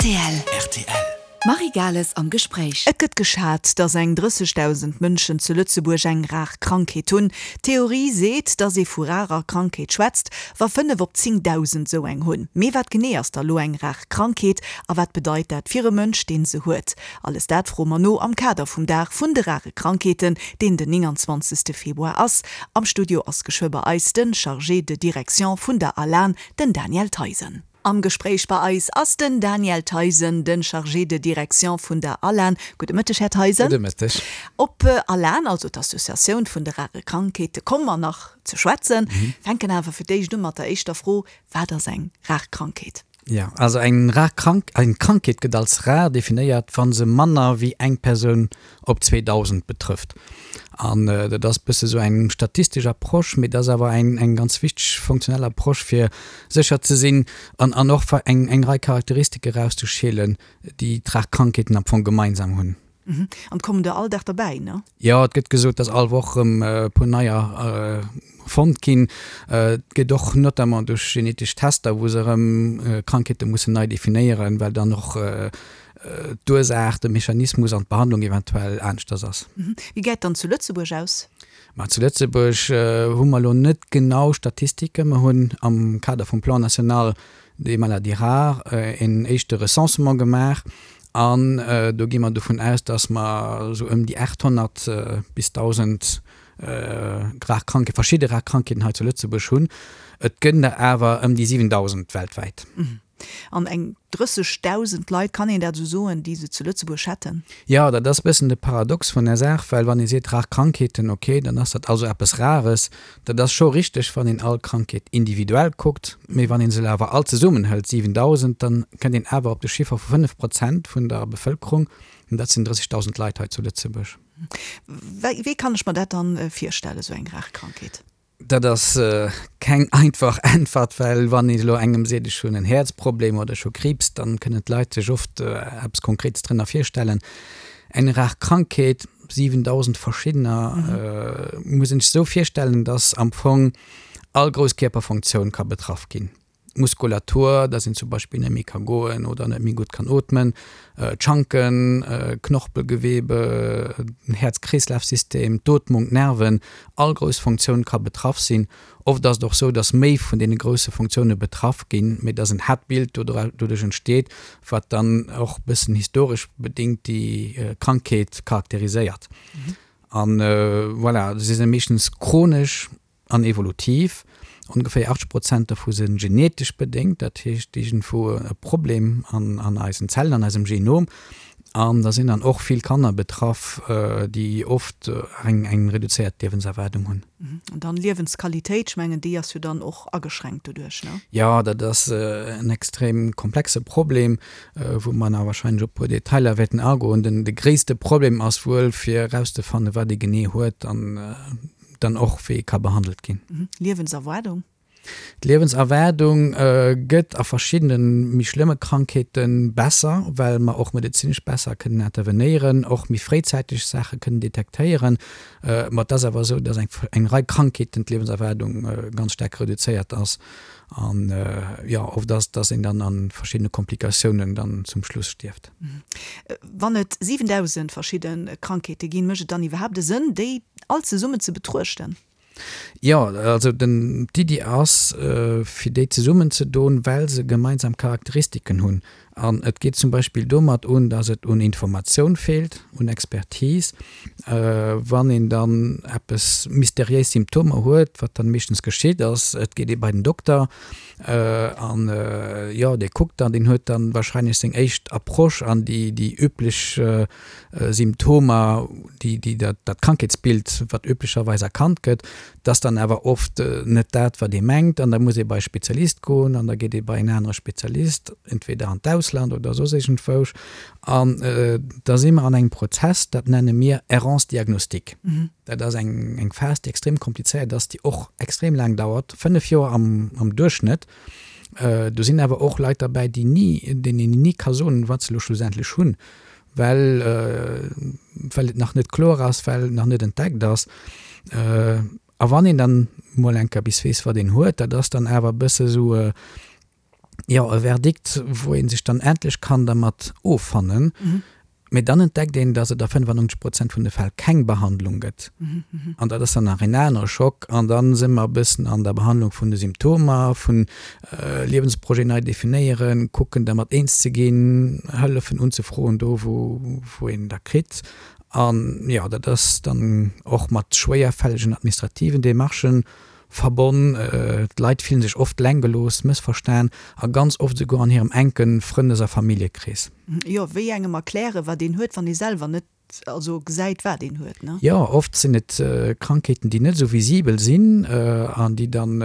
Rtl. Rtl. D'Marie Gales am Gespréich. Et gëtt geschat, datt eng 30.000 Mënschen zu Lëtzebuerg eng rar Krankheet hunn. D'Theorie seet, datt ee vu rarer Krankheet schwätzt, wa 5 op 10.000 esou eng hunn. Mee wat genee ass da lo eng rar Krankheet a wat bedeit dat fir e Mënsch, deen se huet? Alles dat froe mer no am Kader vum Dag vun de rare Krankheeten, deen den 29. Februar ass. Am Studio ass geschwë bei eis den Chargé de Direction vun der ALAN, den Daniel Theisen. Am Gespréich bei eis ass den Daniel Theisen, den Chargé de Direction vun der ALAN. Gudde Mëtteg, Här Theisen. Gudde Mëtteg. Op ALAN, also d'Associatioun vun de rare Krankheete, komme mer nach ze schwätzen. Fänken awer fir d'éischt u mat der éischter Fro, Wat ass eng rar Krankheet? Jo, also eng rar Krank, eng Krankheet gëtt als rar definéiert, wa se manner wéi eng Persoun op 2.000 betrëfft. An dat ass e bësse sou eng statistesch Approche, mee dat ass awer eng, eng ganz wichteg funktionell Approche, fir sécher ze sinn an, an och eng, eng Rei Charakteristike erauszeschelen, déi d'rar Krankheeten am Fong gemeinsam hunn. An et kommen der all Dag derbäi, ne? Jo, et gëtt gesot, dass all Woch erëm e puer neier fonnt ginn. Et gëtt och notamment duerch genetesch Tester, wou se erëm Krankheete mussen nei definéieren, well dann och d'Ursaach, de Mechanismus an d'Behandlung eventuell aneschters ass. Wéi gesäit dann zu Lëtzebuerg aus? Ma zu Lëtzebuerg hu mer elo net genau Statistiken. Mer hunn am Kader vum Plan national des maladies rares en éischte Recensement gemaach an do gi mer dovun aus, dass mer esou ëm déi 800 bis 1.000 rar Krankheeten, verschidde rar Krankheeten hei zu Lëtzebuerg hunn. Et gënn der awer ëm déi 7.000 weltwäit. An eng 30.000 Leit, kann een dat esou soen, déi se zu Lëtzebuerg hätten? Jo, dat ass e bëssen de Paradox vun der Saach, well wann ee seet rar Krankheeten, ok, dann ass dat also eppes Rares. Dat ass scho richteg, wann een all Krankheet individuell kuckt, mee wann ee se awer all zesummen hëlt, 7.000, dann kënnt een awer op de Chiffer vu 5 Prozent vun der Bevëlkerung, an dat sinn 30.000 Leit hei zu Lëtzebuerg. Wéi kann ech mer dat dann virstellen, esou eng rar Krankheet? Dat ass keng einfach Äntwert, well wann een elo engem seet, ech hunn en Häerzproblem oder ech hu Kriibs, dann kënnen d'Leit sech oft eppes Konkretes drënner virstellen. Eng rar Krankheet, 7.000 verschiddener, muss een sech esou virstellen, dass am Fong all grouss Kierperfunktioun ka betraff ginn. D'Muskulatur, dass een zum Beispill net méi ka goen oder net méi gutt kann ootmen, d'Schanken, Knorpelgewebe, den Häerz-Kreeslaf-System, d'Ootmung, d'Nerven, all grouss Funktioun ka betraff sinn. Oft ass et och sou, dass méi vun deene grousse Funktioune betraff ginn, mee dass en Haaptbild doduerch entsteet, wat dann och bëssen historesch bedéngt déi Krankheet charakteriséiert. An voilà, se si meeschtens chronesch. An evolutiv. Ongeféier 80 Prozent dovu si genetesch bedéngt, dat heescht iergendwou e Problem an eisen Zellen, an eisem Genom. An da sinn dann och vill Kanner betraff, déi oft eng reduzéiert Liewenserwaardung hunn. An dann Liewensqualitéit, ech mengen déi ass jo dann och ageschränkt doduerch, ne? Jo, dat ass en extrem komplexe Problem, wou mer nach wahrscheinlech op e puer Detailer wäerten agoen. De gréisste Problem ass wuel fir erauszefannen, wat ee genee huet an dann och wéi ka behandelt ginn. Liewenserwaardung? D'Liewenserwaardung gëtt a verschiddene méi schlëmme Krankheete besser, well mer och medezinesch besser kënnen intervenéieren, och méi fréizäiteg Saache kënnen detektéieren. Ma et ass awer esou, datt eng Rei Krankheeten d'Liewenserwaardung ganz staark reduzéiert ass. An jo, oft ass et, datt een dann a verschiddene Komplikatiounen dann zum Schluss stierft. Wann et 7.000 verschidde Krankheete ginn, mécht et dann iwwerhaapt e Sënn, déi all zesummen ze betruechten? Jo, also den, d'Iddi ass, fir déi zesummen ze doen, well se gemeinsam Charakteristiken hunn. An et geet zum Beispill domat un, datt et un Informatioun feelt, un Expertise. Wann een dann eppes mysteriéis Symptomer huet, wat dann meeschtens geschitt ass, et geet ee bei den Dokter an jo, dee kuckt dann, deen huet dann wahrscheinlech seng éischt Approche an déi, déi üblech Symptomer, déi, déi dat, dat Krankheetsbild, wat üblecherweis erkannt gëtt, dat ass dann awer oft net dat, wat ee mengt an da muss ee bei e Spezialist goen an da geet ee bei en anere Spezialist, entweder an d'Ausland oder soss iergendwousch an da si mer an engem Prozess, dat nenne mir Errance diagnostique. Dat ass eng, eng Phas, déi extrem komplizéiert ass, déi och extrem laang dauert, 5 Joer am, am Duerchschnëtt. Do sinn awer och Leit derbäi, déi ni, deenen een ni ka soen, wat se elo schlussendlech hunn, well, well et nach net kloer ass, well et nach net entdeckt ass. A wann een dann mol eng Kéier bis weess, wat een huet, dat ass dann awer e bësse sou. Jo, e Verdikt, wou ee sech dann endlech kann dermat offannen. Mee dann entdeckt een, dass et a 95 Prozent vun de Fäll keng Behandlung gëtt. An dat ass dann nach een anere Schock. An da si mer e bëssen an der Behandlung vun de Symptomer, vun Liewensprojet nei definéieren, kucken dermat eens ze ginn, Hëllefen unzefroen do wou een der kritt. An jo, dat ass dann och mat schwéierfällegen administrativen Demarchen verbonn. D'Leit fillen sech oft eleng gelooss, mëssverstan a ganz oft esouguer an hirem enke Frëndes a Familljekrees. Jo, wéi engem erklären, wat een huet, wann ee selwer net also gesäit, wat een huet, ne? Jo, oft sinn et Krankheeten, déi net esou visibel sinn an déi dann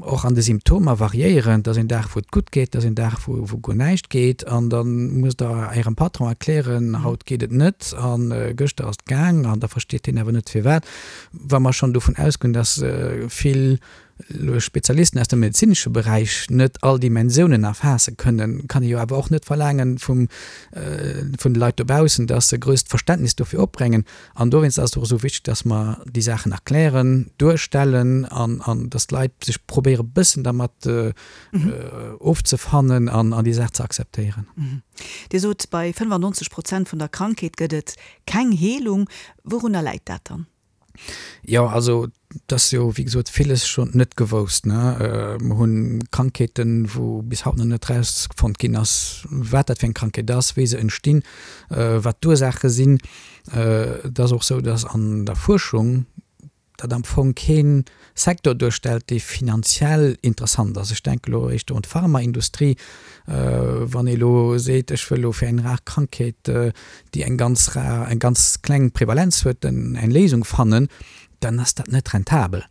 och an de Symptomer variéieren. Et ass een Dag, wou et gutt geet, et ass een Dag, wou guer näischt geet an da musst Der Ärem Patron erklären, haut geet et net a gëschter ass et gaang an da versteet deen awer net firwat. Wa mer schonn dovun ausgoen, dass vill Spezialisten aus dem medezinesche Beräich net all Dimensiounen erfaasse kënnen, kann ee jo awer och net verlaangen vum, vun de Leit dobaussen, dass se e grousst Verständnis dofir opbréngen. An dowéinst ass et och esou wichteg, dass mer déi Saachen erklären, duerstellen an, an dass d'Leit sech probéiere bëssen dermat ofzefannen an, an déi Saach ze akzeptéieren. Dir sot, bei 95 Prozent vun der Krankheet gëtt et keng Heelung. Wourunner läit dat dann? Jo, also et ass jo wéi gesot villes schonn net gewousst, ne. Mer hu Krankheeten, wou bis haut nach net erausfonnt ginn ass, wat dat fir eng Krankheet ass, wéi se entstinn, wat d'Ursaache sinn. Et ass och sou, datt an der Fuerschung dat am Fong kee Secteur duerstellt, dee finanziell interessant ass. Ech denke elo éischter un d'Pharmaindustrie. Wann ee elo seet, ech wëll elo fir eng rar Krankheet, déi eng ganz rar, eng ganz kleng Prevalenz huet, eng Léisung fannen, dann ass dat net rentabel.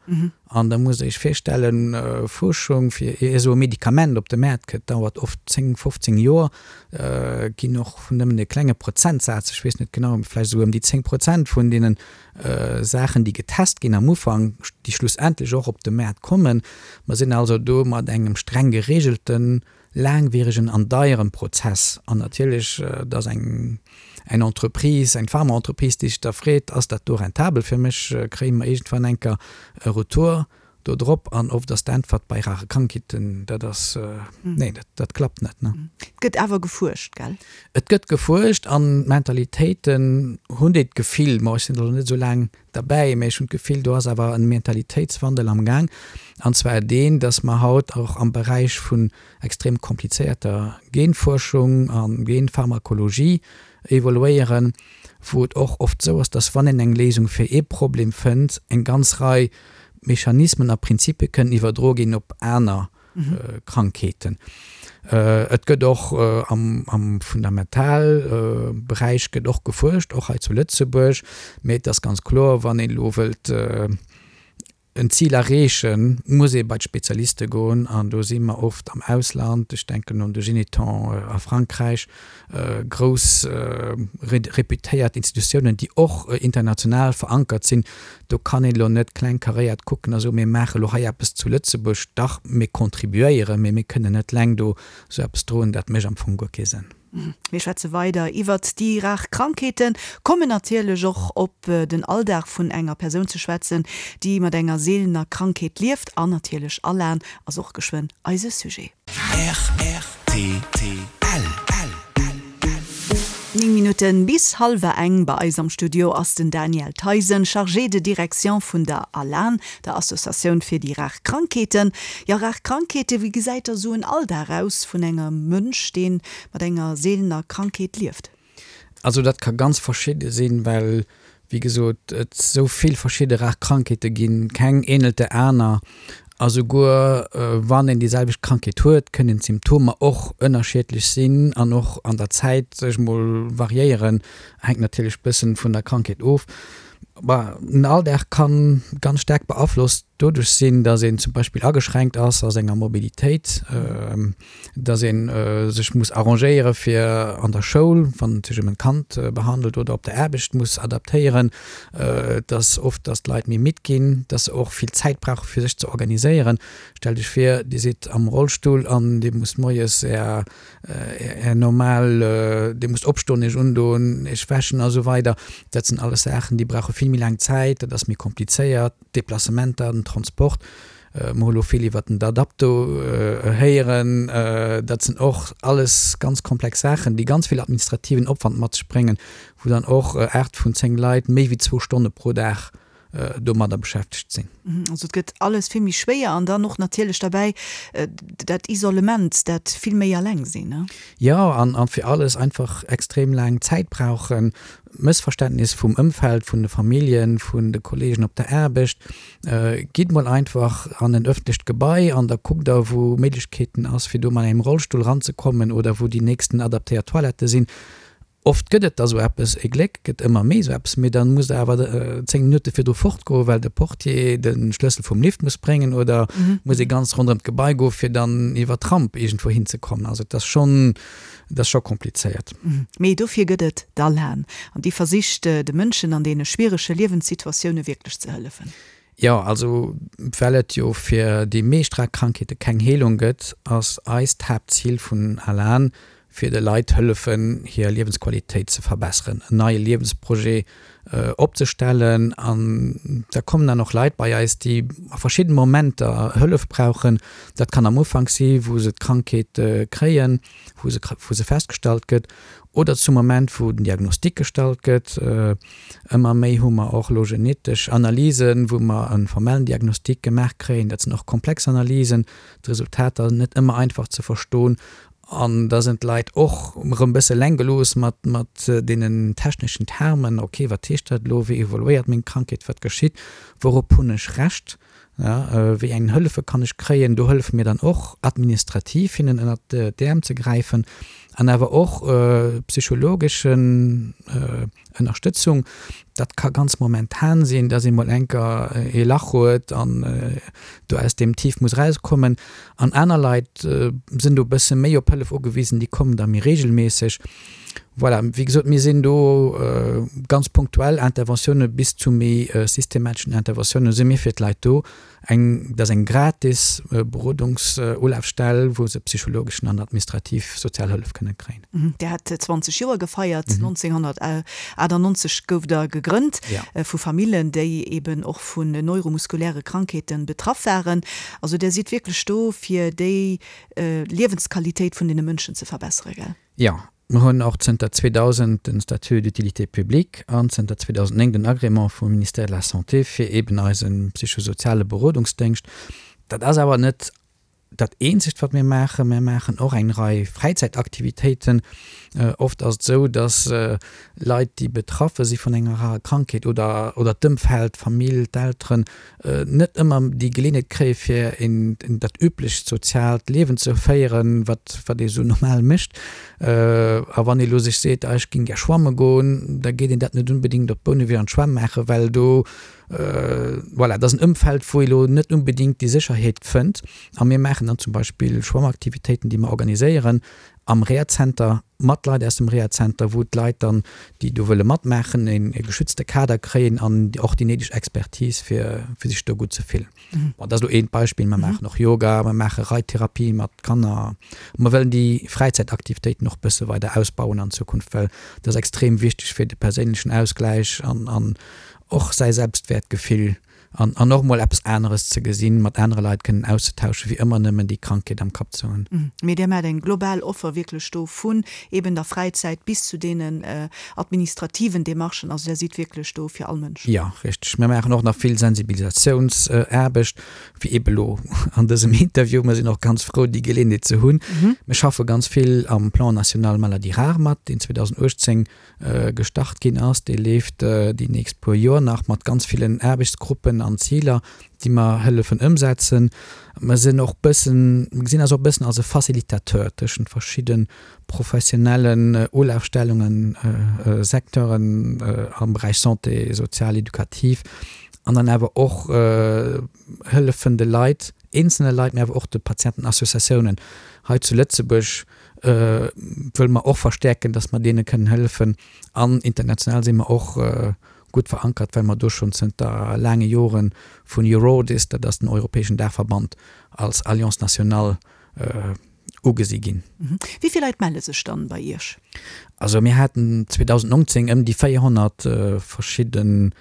An da musst Der Iech virstellen, Fuerschung, fir ier esou e Medikament op de Maart kënnt, dauert oft 10, 15 Joer, ginn och nëmmen e klenge Prozentsaz, ech weess net genau, vläicht esou ëm déi 10 Prozent vun deenen Saachen, déi getest ginn am Ufank, déi schlussendlech och op de Maart kommen. Mer sinn also do mat engem streng geregelten, laangwierigen an deieren Prozess. An natierlech, et ass eng eng Entreprise, eng Pharmaentreprise, déi sech da freet, Ass dat do rentabel fir mech? Kréie mer iergendwann enker e Retour do drop? An oft ass d'Äntwert bei rare Krankheeten, dat ass, nee, dat, dat klappt net. Et gëtt awer gefuerscht, gell? Et gëtt gefuerscht an d'Mentalitéiten hunn déi d'Gefill, ma ech sinn elo net esou laang derbäi, mä ech hunn d'Gefill, do ass awer e Mentalitéitswandel am Gaang, an zwar deen, dass mer haut och am Beräich vun extrem komplizéierter Genfuerschung a Genpharmakologie evoluéieren, wou et och oft esou ass, dass wann een eng Léisung fir ee Problem fënnt, eng ganz Rei Mechanismen a Prinzipie kënnen iwwerdroe ginn op aner Krankheeten. Et gëtt och am Fundamentalberäich gëtt och gefuerscht, och hei zu Lëtzebuerg. Mee et ass ganz kloer, wann een elo wëllt en Zil erreechen, muss ee bei d'Spezialiste goen. An do si mer oft am Ausland, ech denken un de Généthon a Frankräich, grouss reputéiert Institutiounen, déi och international verankert sinn. Do kann een elo net klengkaréiert kucken a soen, mir maache elo hei eppes zu Lëtzebuerg. Dach, mir contribuéieren, mee mir kënnen net eleng do esou eppes droen. Dat mécht am Fong guer kee Sënn. Mir schwätze weider iwwert déi rar Krankheeten, kommen natierlech och op den Alldag vun enger Persoun ze schwätzen, déi mat enger seelener Krankheet lieft. An natierlech Alan ass och geschwënn eise Sujet. Rtl. 9 Minutten bis hallwer eng. Bei eis am Studio ass den Daniel Theisen, Chargé de direction vun der ALAN, der Associatioun fir déi rar Krankheeten. Jo, rar Krankheeten, wéi gesäit da sou en Alldag aus vun engem Mënsch, dee mat enger seelener Krankheet lieft? Also dat ka ganz verschidde sinn, well wéi gesot et esou vill verschidde rar Krankheete ginn, keng ähnelt der aner a souguer wann een déi selwecht Krankheet huet, kënnen d'Symptomer och ënnerschiedlech sinn an och an der Zäit sech mol variéieren, hänkt natierlech bëssen vun der Krankheet of. Bah, den Alldag kann ganz staark beaflosst doduerch sinn, dass een zum Beispill ageschränkt ass a senger Mobilitéit, dass ee sech muss arrangéiere fir an der Schoul, wann et sech ëm en Kand behandelt, oder op der Aarbecht muss adaptéieren, dass oft, dass d'Leit méi midd ginn, dass se och vill Zäit brauche fir sech ze organiséieren. Stellt Iech vir, Dir sidd am Rollstull an Dir musst moies Är Är normal, Dir musst opstoen, Iech undoen, Iech wäschen a sou weider. Dat sinn alles Saachen, déi brauche vill méi laang Zäit, dat ass méi komplizéiert, d'Deplacementer, den Transport. Mer hu lo vill iwwert den Adapto héieren. Dat sinn och alles ganz komplex Saachen, déi ganz vill administrativen Opwand mat sech bréngen, wou dann och 8 vun 10 Leit méi wéi zwou Stonne pro Dag domadder beschäftegt sinn. Also et gëtt alles vill méi schwéier an dann och natierlech derbäi dat Isolement, dat vill méi alleng sinn. Jo, an fir alles einfach extrem laang Zäit brauchen, Mëssverständnis vum Ëmfeld, vun de Familljen, vun de Kollegen op der Aarbecht. Gitt mol einfach an en ëffentlecht Gebai an da kuckt der, wou Méiglechkeeten ass, fir do mat engem Rollstull ranzekommen oder wou déi nächsten adaptéiert Toilettë sinn. Oft gëtt et da sou eppes, e Gléck gëtt ëmmer méi sou eppes, mee da musst der awer 10 Minutte virdru fortgoen, well de Portier de Schlëssel vum Lift muss bréngen oder muss ee ganz ronderëm d'Gebai goen, fir dann iwwer d'Ramp iergendwou hinzekommen. Also et ass schonn, et ass scho komplizéiert. Mee dofir gëtt et d'ALAN an déi versicht de Mënschen an deene schwierege Liewenssituatioune wierklech ze hëllefen. Jo, also well et jo fir déi meescht rar Krankheete keng Heelung gëtt, ass eist Haaptzil vun ALAN, fir de Leit hëllefen, hir Liewensqualitéit ze verbesseren, en neie Liewensprojet opzestellen. An da kommen dann och Leit bei eis, déi a verschidde Momenter Hëllef brauchen. Dat kann am Ufank si wou se d'Krankheet kréien, wou se, wou se festgestallt gëtt, oder zum Moment, wou den Diagnostic gestallt gëtt. Ëmmer méi hu mer och elo genetesch Analysen, wou mer e formellen Diagnostic gemaach kréien. Dat sinn och komplex Analysen, d'Resultater net ëmmer einfach ze verstoen. An da sinn d'Leit och erëm e bësse eleng gelooss mat, mat deenen techneschen Termen. Ok, wat heescht dat elo? Wéi evoluéiert meng Krankheet? Wat geschitt? Wourop hunn ech Recht? Wéi eng Hëllefe kann ech kréien? Do hëllefe mir dann och administrativ hinnen ënnert d'Äerm ze gräifen an awer och psychologeschen Ënnerstëtzung. Dat ka ganz momentan sinn, dass ee mol enker ee Lach huet an do aus deem Tief muss erauskommen. An aner Leit sinn do e bësse méi op Hëllef ugewisen, déi kommen da méi reegelméisseg. Voilà, wéi gesot, mir sinn do ganz punktuell Interventioune bis zu méi systemateschen Interventioune si mir fir d'Leit do. Eng, dat ass eng gratis Berodungsulafstell, wou se psychologeschen an administrativ sozial Hëllef kënne kréien. Dir hat 20 Joer gefeiert. 1998 gouft Der gegrënnt vu Famillen, déi eben och vun neuromuskuläre Krankheete betraff waren. Also Der sidd wierklech do, fir déi Liewensqualitéit vun deene Mënschen ze verbessere, gell? Jo, mer hunn och zënter 2000 den Statut d'utilité publique an zënter 2009 den Agrément vum Ministère de la Santé fir eeben eise psychosoziale Berodungsdéngscht. Dat ass awer net dat eenzegt, wat mir maachen. Mir maachen och eng Rei Fräizäitaktivitéiten. Oft ass et esou, dass Leit, déi betraffe si vun enger rarer Krankheet oder oder d'Ëmfeld, d'Famill, d'Elteren, net ëmmer déi Geleeënheet kréie fir een dat üblecht soziaalt Liewen ze féieren, wat wat ee sou normal mécht. A wann ee lo sech seet, ah ech géing gär schwamme goen, da geet een dat net unbedéngt op Bouneweg an d'Schwämm maachen, well do, voilà, dat ass en Ëmfeld, wou ee lo net unbedéngt déi Sécherheet fënnt. A mir maachen dann zum Beispill Schwammaktivitéiten, déi mer organiséieren am Rehazenter, mat Leit aus dem Rehazenter, wou d'Leit dann, déi do wëlle matmaachen, e geschützte Kader kréien an och déi néideg Expertise, fir fir sech do gutt ze fillen. Bon, dat ass elo eent Beispill. Mer maachen och Yoga, mer maache Reittherapie mat Kanner. Mer wëllen déi Fräizäitaktivitéiten och bësse weider ausbauen an Zukunft, well dat ass extrem wichteg fir de perséinlechen Ausgläich an an och säi Selbstwäertgefill An, an och mol eppes aneres ze gesinn, mat anere Leit kënnen auszetauschen, wéi ëmmer nëmmen déi Krankheet am Kapp ze hunn. Mee Dir maacht eng global Offer wierklech do, vun eben der Fräizäit bis zu deenen administrativen Demarchen. Also Där sidd wierklech do fir all Mënsch. Jo, richteg. Mir maachen och nach vill Sensibilisatiounsaarbecht, wéi ebe lo an dësem Interview. Mir sinn och ganz frou, déi Geleeënheet ze hunn. Mir schaffe ganz vill am Plan national maladies rares mat, deen 2018 gestart ginn ass, dee leeft déi nächst puer Joer nach mat ganz villen Aarbechtsgruppen an Ziler, déi mer hëllefen ëmsetzen. Mer sinn och bëssen, mer gesinn eis och bëssen als e Facilitateur tëschent verschidde professionellen Ulafstellungen, Secteuren am Beräich Santé, sozial, edukativ an dann awer och hëllefen de Leit, eenzelne Leit, mä awer och de Patientenassociatiounen hei zu Lëtzebuerg wëlle mer och verstäerken, dass mer deene kënnen hëllefen. An international si mer och gutt verankert, well mer do schonn zënter laange Jore vun Eurodis, dat ass den europäeschen Daachverband, als Alliance nationale. ugesi ginn. Wéi vill Leit melle sech dann bei Iech? Also mir haten 2019 ëm déi 400 verschidde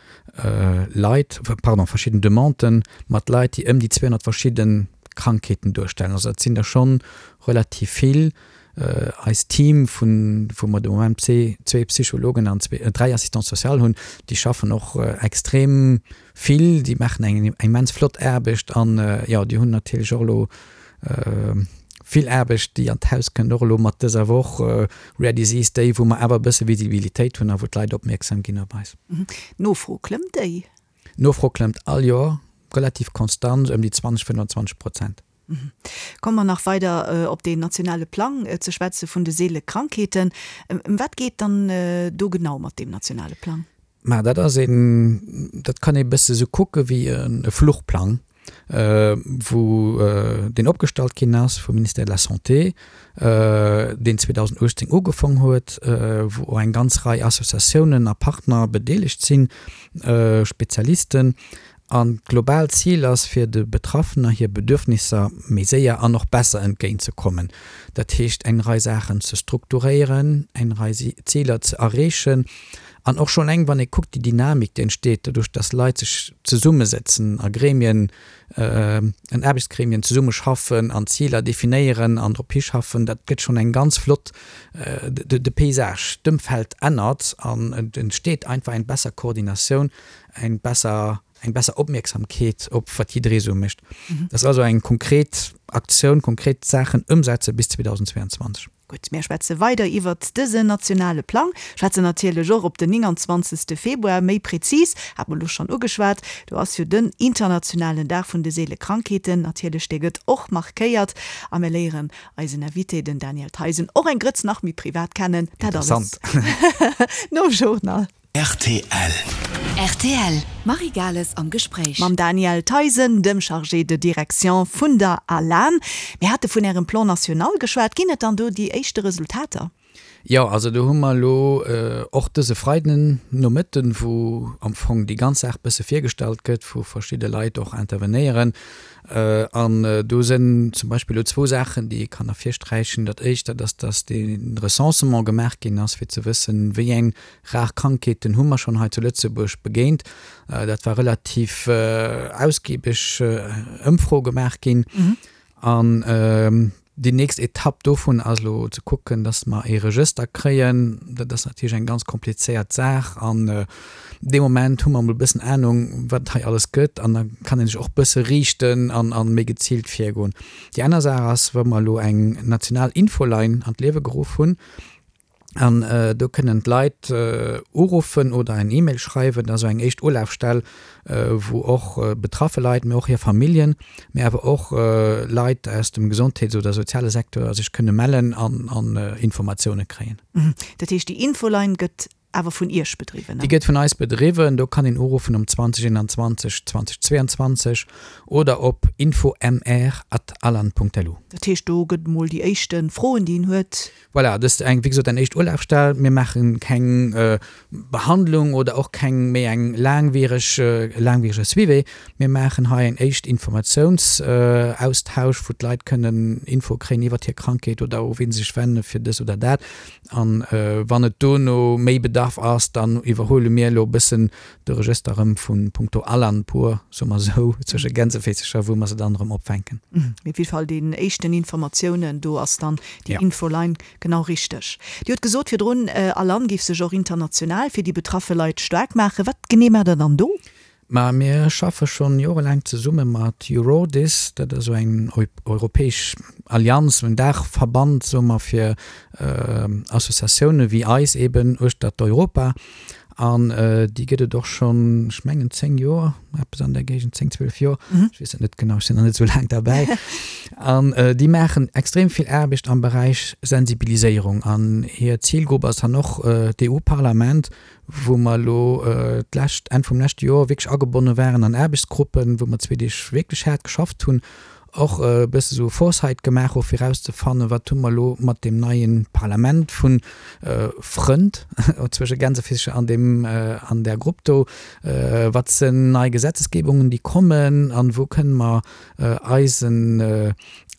Leit, pardon, verschidden Demanden mat Leit, déi ëm déi 200 verschidde Krankheeten duerstellen. Also dat sinn der schonn relativ vill. Eist Team vun, wou mer de Moment zwee Psychologen an zwee, dräi Assistants sociales hunn, déi schaffen och extrem vill, déi maachen eng immens flott Aarbecht an, jo, déi hunn natierlech och elo vill Aarbecht, déi an d'Haus kënnt, och elo mat dëser Woch Rare Disease Day, wou mer awer e bësse Visibilitéit hunn a wou d'Leit opmierksam ginn op eis. D'Nofro, klëmmt déi? D'Nofro klëmmt all Joer relativ konstant ëm déi 20, 25 Prozent. Komme mer nach weider op deen nationale Plang ze schwätze vun de seele Krankheeten. Ëm wat geet dann do genau mat deem nationale Plang? Ma dat ass een, dat kann ee bësse sou kucke wéi e Fluchplang, wou deen opgestallt ginn ass vum Ministère de la Santé, deen 2018 ugefong huet, wou och eng ganz Rei Associatiounen a Partner bedeelegt sinn, Spezialisten. An d'global Zil ass, fir de Betraffener hir Bedürfnisser méi séier an och besser entgéint ze kommen. Dat heescht, eng Rei Saachen ze strukturéieren, eng Rei Ziler ze erreechen an och schonn eleng, wann ee kuckt, déi Dynamik, déi entsteet doduerch, dass Leit sech zesummesetzen a Gremien, an Aarbechtsgremien zesummeschaffen an Ziler definéieren an drop hischaffen, dat gëtt schonn eng ganz flott, de Paysage, d'Ëmfeld ännert an et entsteet einfach eng besser Koordinatioun eng besser, eng besser Opmierksamkeet op wat jidderee sou mécht. Dat ass also eng konkret Aktioun, konkret Saachen ëmsetze bis 2022. Gutt, mär schwätze weider iwwert dësen nationale Plang, schwätzen natierlech och op den 29. Februar méi prezis, hat mer elo schonn ugeschwat, do ass jo den internationalen Dag vun de seele Krankheeten, natierlech, dee gëtt och markéiert a mär léieren eisen Invité, den Daniel Theisen, och eng Grëtz nach méi privat kennen. Dat alles nom Journal. Rtl. Rtl, Marie Gales am Gespréich. Mam Daniel Theisen, dem Chargé de direction vun der ALAN. Mir hate vun Ärem Plan national geschwat. Ginn et dann do déi éischte Resultater? Jo, also do hu mer elo och dëse Freiden Nomëtten, wou am Fong déi ganz Saach bësse virgestallt gëtt, wou verschidde Leit och intervenéieren. An do sinn zum Beispill elo zwou Saachen, déi ee kann ervirsträichen. Dat éischt, dat ass, dass dee Recensement gemaach ginn ass, fir ze wëssen, wéi eng Rar Krankheeten hu mer schonn hei zu Lëtzebuerg begéint. Dat war relativ ausgiebeg Ëmfro gemaach ginn. An déi nächst Etapp dovun ass elo ze kucken, dass mer ee Regëster kréien. Dat ass natierlech eng ganz komplizéiert Saach. An dee Moment hu mer emol e bëssen Anung, wat et hei alles gëtt. An da kann ee sech och e bësse riichten an méi geziilt virgoen. Déi aner Saach ass, wa mer elo eng national Infoline an d'Liewe geruff hunn, An do kënnen d'Leit uruffen oder eng E-Mail schreiwen. Dat ass esou eng éischt Ulafstell, wou och betraffe Leit, mee och hir Familljen, mee awer och Leit aus dem Gesondheets oder soziale Secteur sech kënne mellen an Informatioune kréien. Dat heescht, déi Infoline gëtt awer vun Iech bedriwwen? Déi gëtt vun eis bedriwwen. Do kann een uruffen um 20 21 20 22 oder op infomr at alan.lu. Dat heescht, do gëtt emol déi éischte Froen, déi een huet. Voilà, dëst eng, wéi gesot, eng éischt Ulafstell. Mir maache keng Behandlung oder och keng méi eng laangwiereg, laangwierege Suivi. Mir maachen hei eng éischt Informatiounsaustausch, wou d'Leit kënnen Info kréien iwwert hir Krankheet oder u wien se sech wenne fir dës oder dat. An wann et dono méi Bedarf ass, dann iwwerhuele mir elo e bëssen de Regëster erëm vu punkto Alan pur, soe mer esou, zwësche Gänseféisercher, wou mer se dann erëm opfänken. Mee op jidde Fall déi éischten Informatiounen, do ass dann déi Infoline genau richteg. Dir hutt gesot virdrun, Alan géif sech och international fir déi betraffe Leit staark maachen. Wat genee maacht Der dann do? Ma mir schaffe schonn jorelaang zesumme mat Eurodis, dat ass esou eng europäesch Allianz, en Daachverband, soe mer, fir Associatioune wéi eis eben uechtert Europa. An déi gëtt et och schonn, ech mengen 10 Joer, eppes an där Géigend, 10, 12 Joer, ech weess et net genau, ech sinn nach net esou laang derbäi. An déi maachen extrem vill Aarbecht am Beräich Sensibiliséierung. An hir Zilgrupp ass dann och d'EU-Parlament, wou mer elo d'lescht, Enn vum leschte Joer wierklech agebonne waren an Aarbechtsgruppen, wou mer zwee Deeg wierklech haart geschafft hunn. och e bësse sou Foresight gemaach hu fir erauszefannen, wat hu mer elo mat deem neie Parlament vu Frënd, zwësche Gänsefischer an deem, an där Grupp do, wat sinn nei Gesetzesgebungen, déi kommen an wou kënne mer eisen,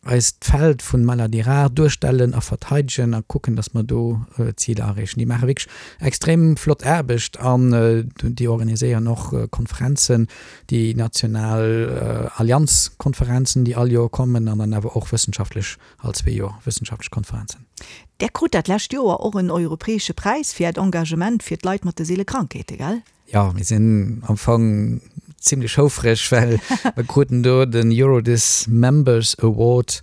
eist Feld vun Maladies rares duerstellen a verteidegen a kucken, dass mer do Ziler erreechen. Déi maache wierklech extrem flott Aarbecht an déi organiséieren och Konferenzen, déi national Allianzkonferenzen, déi all Joer kommen an dann awer och wëssenschaftlech, all zwee Joer wëssenschaftlech Konferenzen. Där krut dat lescht Joer och en europäesche Präis fir Äert Engagement fir d'Leit mat de seele Krankheete, gell? Jo, mir sinn am Fong zimlech houfreg, well mir kruten do den Eurodis Members Award,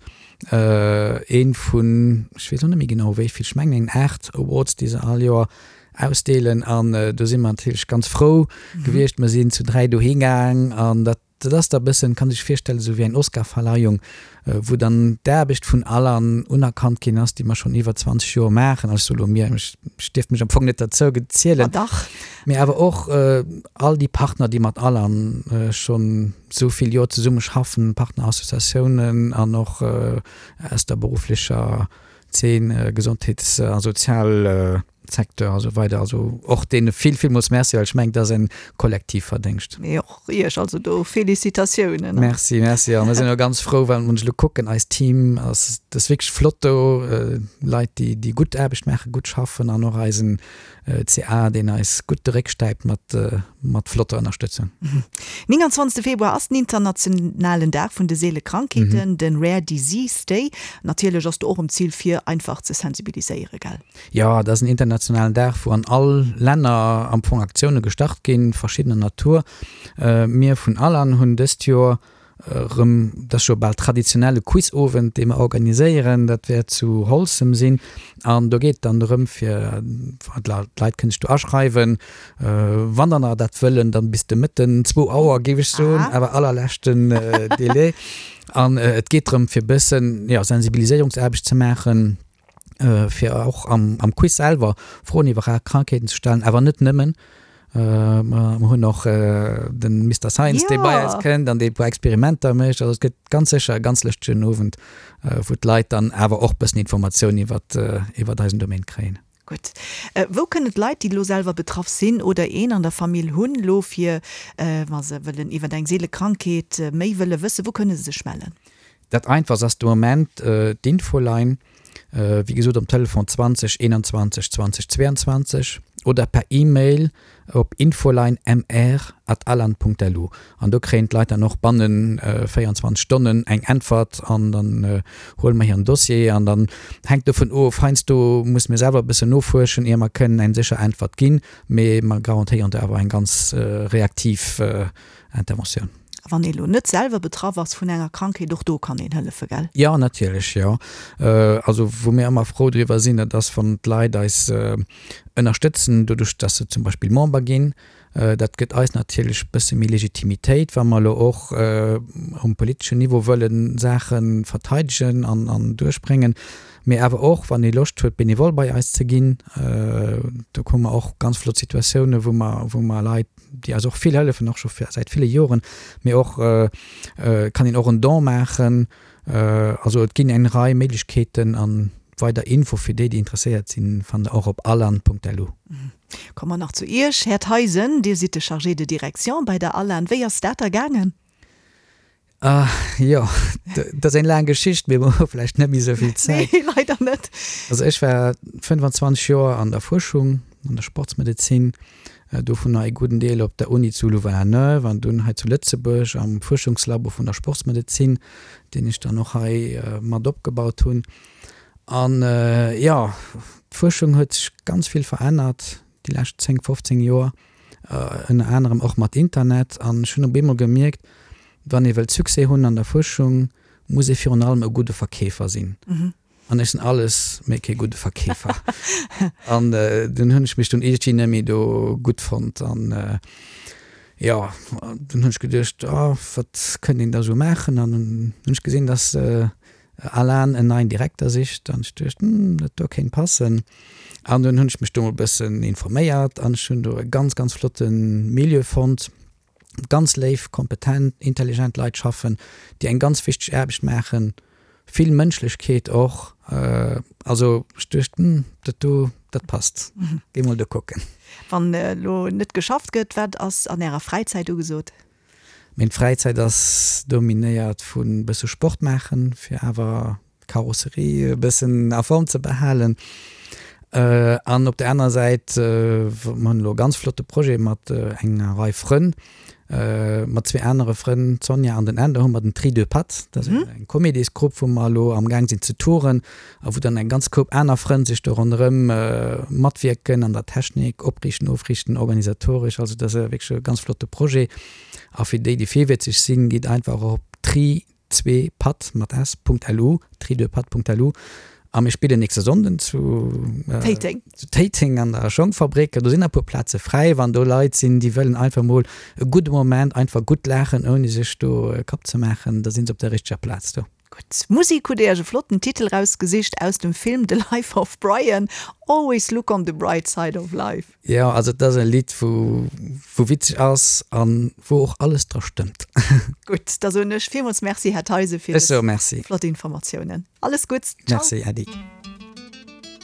ee vun, ech weess och net méi genau wéi vill, ech mengen eng 8 Awards, déi se all Joer ausdeelen. An do si mer natierlech ganz frou gewiescht. Mer sinn zu 3 dohi gaang an dat Dat ass da bëssen, kann sech virstellen, esou wéi eng Oscarverleihung, wou dann d'Aarbecht vun allen unerkannt ginn ass, déi mer schonn iwwer 20 Joer maachen. Also ech soe lo mir, ech dierft mech am Fong net derzou zielen. Ma dach. Mee awer och all déi Partner, déi mat Alan schonn esou vill Joer zesumme schaffen, Partnerassociatiounen an och aus der berufflecher Zeen, Gesondheets a Sozial. Secteur a sou weider. Also och deene vill, villmools Merci, well ech mengen, dat ass en kollektiv Verdéngscht. Mee och Iech also do Félicitatiounen. Merci, merci. A mir sinn och ganz frou, well wann ech elo kucken, eist Team ass, dat ass wierklech flott do, Leit, déi, déi gutt Aarbecht maachen, gutt schaffen an och eisen CA, deen eis gutt de Réck stäipt mat, mat flotter Ënnerstëtzung. 29 Februar ass den internationalen Dag vun de seele Krankheeten, den Rare Disease Day. Natierlech ass do och um Zil fir einfach ze sensibiliséieren, gell? Jo, dat ass en internationalen Dag, wou an all Länner am Fong Aktioune gestart ginn, verschiddener Natur. Mir vun Alan hunn dëst Joer erëm, dat ass scho bal traditionell, e Quizowend, dee mer organiséieren. Dat wäert zu Holzem sinn an do geet et dann drëm, fir d'Leit kënnen sech do aschreiwen, wann der nach dat wëllen, dann bis de Mëtten, zwou Auer géif ech soen, awer allerleschten Délai. An et geet drëm, fir e bëssen, jo, Sensibiliséierungsaarbecht ze maachen. fir och am, am Quiz selwer Froen iwwer rar Krankheeten ze stellen, awer net nëmmen. Mer hunn och den Mister Science, dee bei eis kënnt an dee e puer Experimenter mécht. Also et gëtt ganz sécher e ganz lëschtegen Owend, wou d'Leit dann awer och bëssen Informatioun iwwer, iwwer eisen Domaine kréien. Gutt. Wou kënnen d'Leit, déi elo selwer betraff sinn oder een an der Famill hunn, elo fir, wa se wëllen iwwer eng seele Krankheet méi wëlle wëssen, wou kënne se sech mellen? Dat einfachst ass de Moment d'Infoline, wéi gesot um Telefon 20 21 20 22 oder per E-Mail op infoline-mr@alan.lu an do kréien d'Leit dann och bannen 24 Stonnen eng Äntwert an dann huele mer hiren Dossier an dann hänkt dovun of, heiansdo musse mir selwer e bëssen nofuerschen ier mer kënnen eng sécher Äntwert ginn, mee mer garantéieren do awer eng ganz reaktiv Interventioun. A wann ee lo net selwer betraff ass vun enger Krankheet, och do kann een hëllefe, gell? Jo, natierlech, jo. Also wou mir ëmmer frou driwwer sinn, dat ass wann d'Leit eis ënnerstëtzen, doduerch datt se zum Beispill Member ginn. Dat gëtt eis natierlech e bësse méi Legitimitéit, wa mer elo och um politeschen Niveau wëlle Saache verteidegen an duerchbréngen. Mee awer och wann ee Loscht huet benevol bei eis ze ginn, do hu mer och ganz flott Situatiounen, wou mer, wou mer Leit, déi eis och vill hëllefen, och scho säit ville Joren, mee och kann een och en Don maachen. Also et ginn eng Rei Méiglechkeeten an weider Info fir déi, déi interesséiert sinn, fannt der och op alan.lu. Komme mer nach zu Iech, Här Theisen, Dir sidd de Chargé de direction bei der Alan. Wéi ass dat da gaangen? Ah, jo, dat ass eng laang Geschicht, mee mer hu vläicht net méi esou vill Zäit. Nee, leider net. Also ech war 25 Joer an der Fuerschung, an der Sportsmedezin, dovunner ee gudden Deel op der Uni zu Louvain-la-Neuve an dunn hei zu Lëtzebuerg am Fuerschungslabo vun der Sportsmedezin, deen ech dann och hei mat opgebaut hunn. An jo, d'Fuerschung huet sech ganz vill verännert déi lescht 10, 15 Joer. ënner anerem och mat Internet, an ech hunn op eemol gemierkt, wann ee wëllt Succès hunn an der Fuerschung, muss ee virun allem e gudde Verkeefer sinn. An ech sinn alles, mee kee gudde Verkeefer. An dunn hunn ech mech dunn iergendwéi net méi do gutt fonnt an jo, dunn hunn ech geduecht, oh wat kënnt een da sou maachen? An dunn hunn ech gesinn, dass Alan en neien Direkter sicht an ech duecht, hm, dat do kéint passen. An dunn hunn ech mech do mol e bëssen informéiert an ech hunn do e ganz, ganz flotte Milieu fonnt. Ganz léif, kompetent, intelligent Leit schaffen, déi eng ganz wichteg Aarbecht maachen, vill Mënschlechkeet och. Also ech duecht, hm, dat do, dat passt, géi mol do kucken. Wann elo net geschafft gëtt, wat ass an Ärer Fräizäit ugesot? Meng Fräizäit ass dominéiert vu bësse Sport maachen, fir awer d'Karosserie e bëssen a Form ze behalen. An op der anerer Säit, mer hunn elo e ganz flotte Projet mat enger Rei Frënn, mat zwee anere Frënn, d'Sonja an den Änder, hu mer den Tri deux Pattes. Dat ass eng Comédiesgrupp, wou mer elo amgaang sinn ze touren a wou dann eng ganz Koup aner Frënn sech do ronderëm matwierken an der Technik, opriichten, ofriichten, organisatoresch. Also dat ass wierklech e ganz flotte Projet. A fir déi, déi virwëtzeg sinn, gitt einfach op tri 2patt mat s Punkt lu, tri2patt.lu a mir spillen nächste Sonnden zu Téiteng. Zu Téiteng an der Schongfabrik. Do sinn nach e puer Plaze fräi, wann do Leit sinn, déi wëllen einfach mol e gudde Moment, einfach gutt laachen, ouni sech do e Kapp ze maachen, da sinn se op der richteger Plaz do. Gutt, Musik hutt Dir Iech e flotten Titel rausgesicht aus dem Film The Life of Brian, Always look on the bright side of life. Jo, also et ass e Lidd wou wou witzeg ass an wou och alles dra stëmmt. Gutt, da soen ech villmools Merci, Här Theisen, fir dës flott Informatiounen. Alles Gutts, ciao. Merci, Äddi.